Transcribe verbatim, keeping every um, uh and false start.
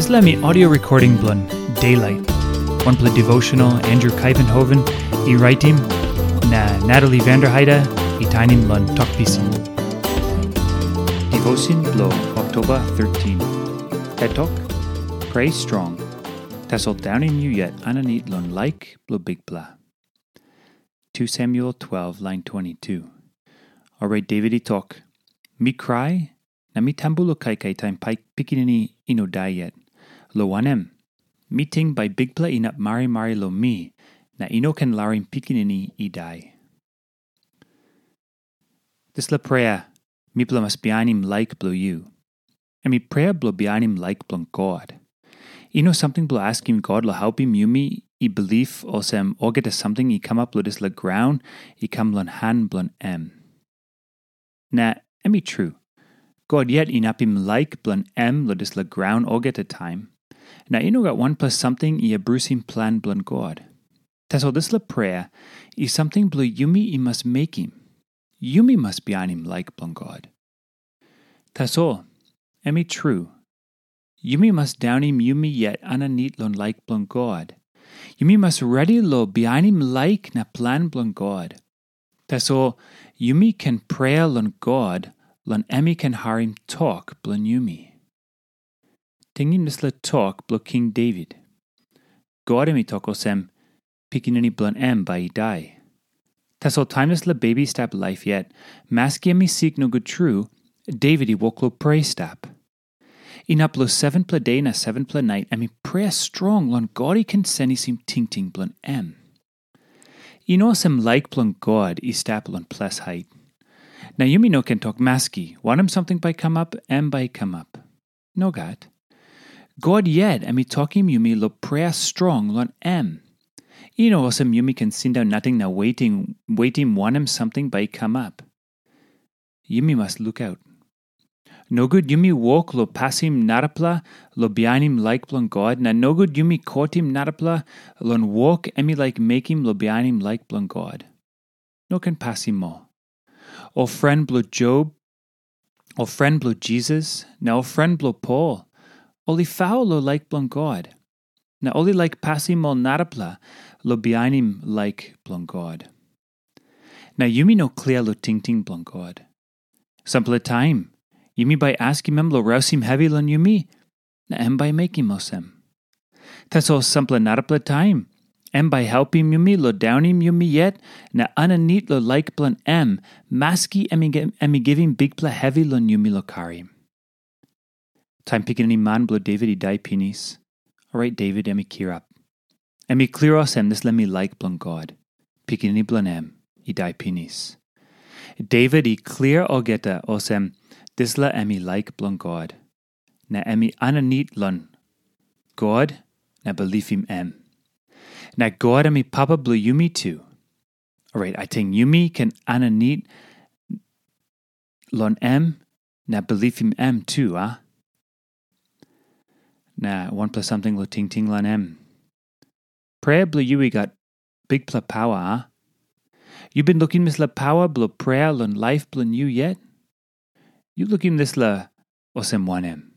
Dispela em i audio recording bilong Daylight, wanpela devotional Andrew Kuyvenhoven i raitim, na Natalie Vanderheide i tainim long Tok Pisin. Devotion bilong Oktoba thirteen. Hetok, pray strong. Tasol daunim yu yet aninit long laik bilong Bikpela. two Samuel twelve, lain twenty-two. Orait Devit i tok, "Mi krai, na mi tambu long kaikai taim pai-, pikinini i no dai yet. Lo wanem, mi ting bai Bikpela inap marimari long mi, na i no ken larim pikinini i dai." Dispela prea, mipela mas bihainim laik bilong yu. Em i prea bilong bihainim laik bilong God. I no samting bilong askim God long helpim yumi i bilip olsem olgeta samting i kamap long dispela graun i kam long han bilong em. Na em i tru, God yet inapim laik bilong em long dispela graun olgeta taim, na i no gat wanpela samting i abrusim plan bilong God. Tasol dispela prea i samting bilong yumi i mas mekim. Yumi mas bihainim laik bilong God. Tasol, em i tru, yumi mas daunim yumi yet aninit long laik bilong God. Yumi mas redi long bihainim laik na plan bilong God. Tasol, yumi ken prea long God, long em i ken harim tok bilong yumi. Tingim dispela tok bilong King Devit. God em i tok olsem, pikinini bilong em bai i dai. Tasol taim dispela bebi i stap laip yet, maski em i sik nogut tru, Devit i wok long prea i stap. Inap long sevenpela de na sevenpela nait em i prea strong long God i ken senisim tingting bilong em. I no olsem laik bilong God i stap long ples hait. Na yumi no ken tok maski, wanem samting bai kamap, em bai kamap. Nogat. God yet em i tokim yumi long prea strong long em. I no olsem yumi ken sindaun nating na wetim, wetim wanem samting bai i kamap. Yumi mas lukaut. Nogut yumi wok long pasim narapela long bihainim laik bilong God, na nogut yumi kotim narapela long wok em i laik mekim long bihainim laik bilong God. No ken pasim ol. Ol pren bilong Job, ol pren bilong Jisas, na ol pren bilong Pol, ol i faul long laik bilong God, na ol i laik pasim ol narapela long bihainim laik bilong God. Na yumi no klia long tingting bilong God. Sampela taim, yumi bai askim em long rausim hevi long yumi, na em bai mekim olsem. Tasol sampela narapela taim, em bai helpim yumi long daunim yumi yet na aninit long laik bilong em, maski em i gi-, em i givim bikpela hevi long yumi long karim. Taim pikinini man bilong Devit i dai pinis, orait Devit em i kirap. Em i klia olsem dispela em i laik bilong God, pikinini bilong em i dai pinis. Devit i klia olgeta olsem dispela em i laik bilong God, na em i aninit long God na bilipim em. Na God em i papa bilong yumi tu. Orait, ating yumi ken aninit long em na bilipim em tu, a? Na wanpela samting long tingting long em. Prea bilong yu i gat bikpela pawa, a? Yu bin lukim dispela pawa bilong prea long laip bilong yu yet? Yu lukim dispela olsem wanem?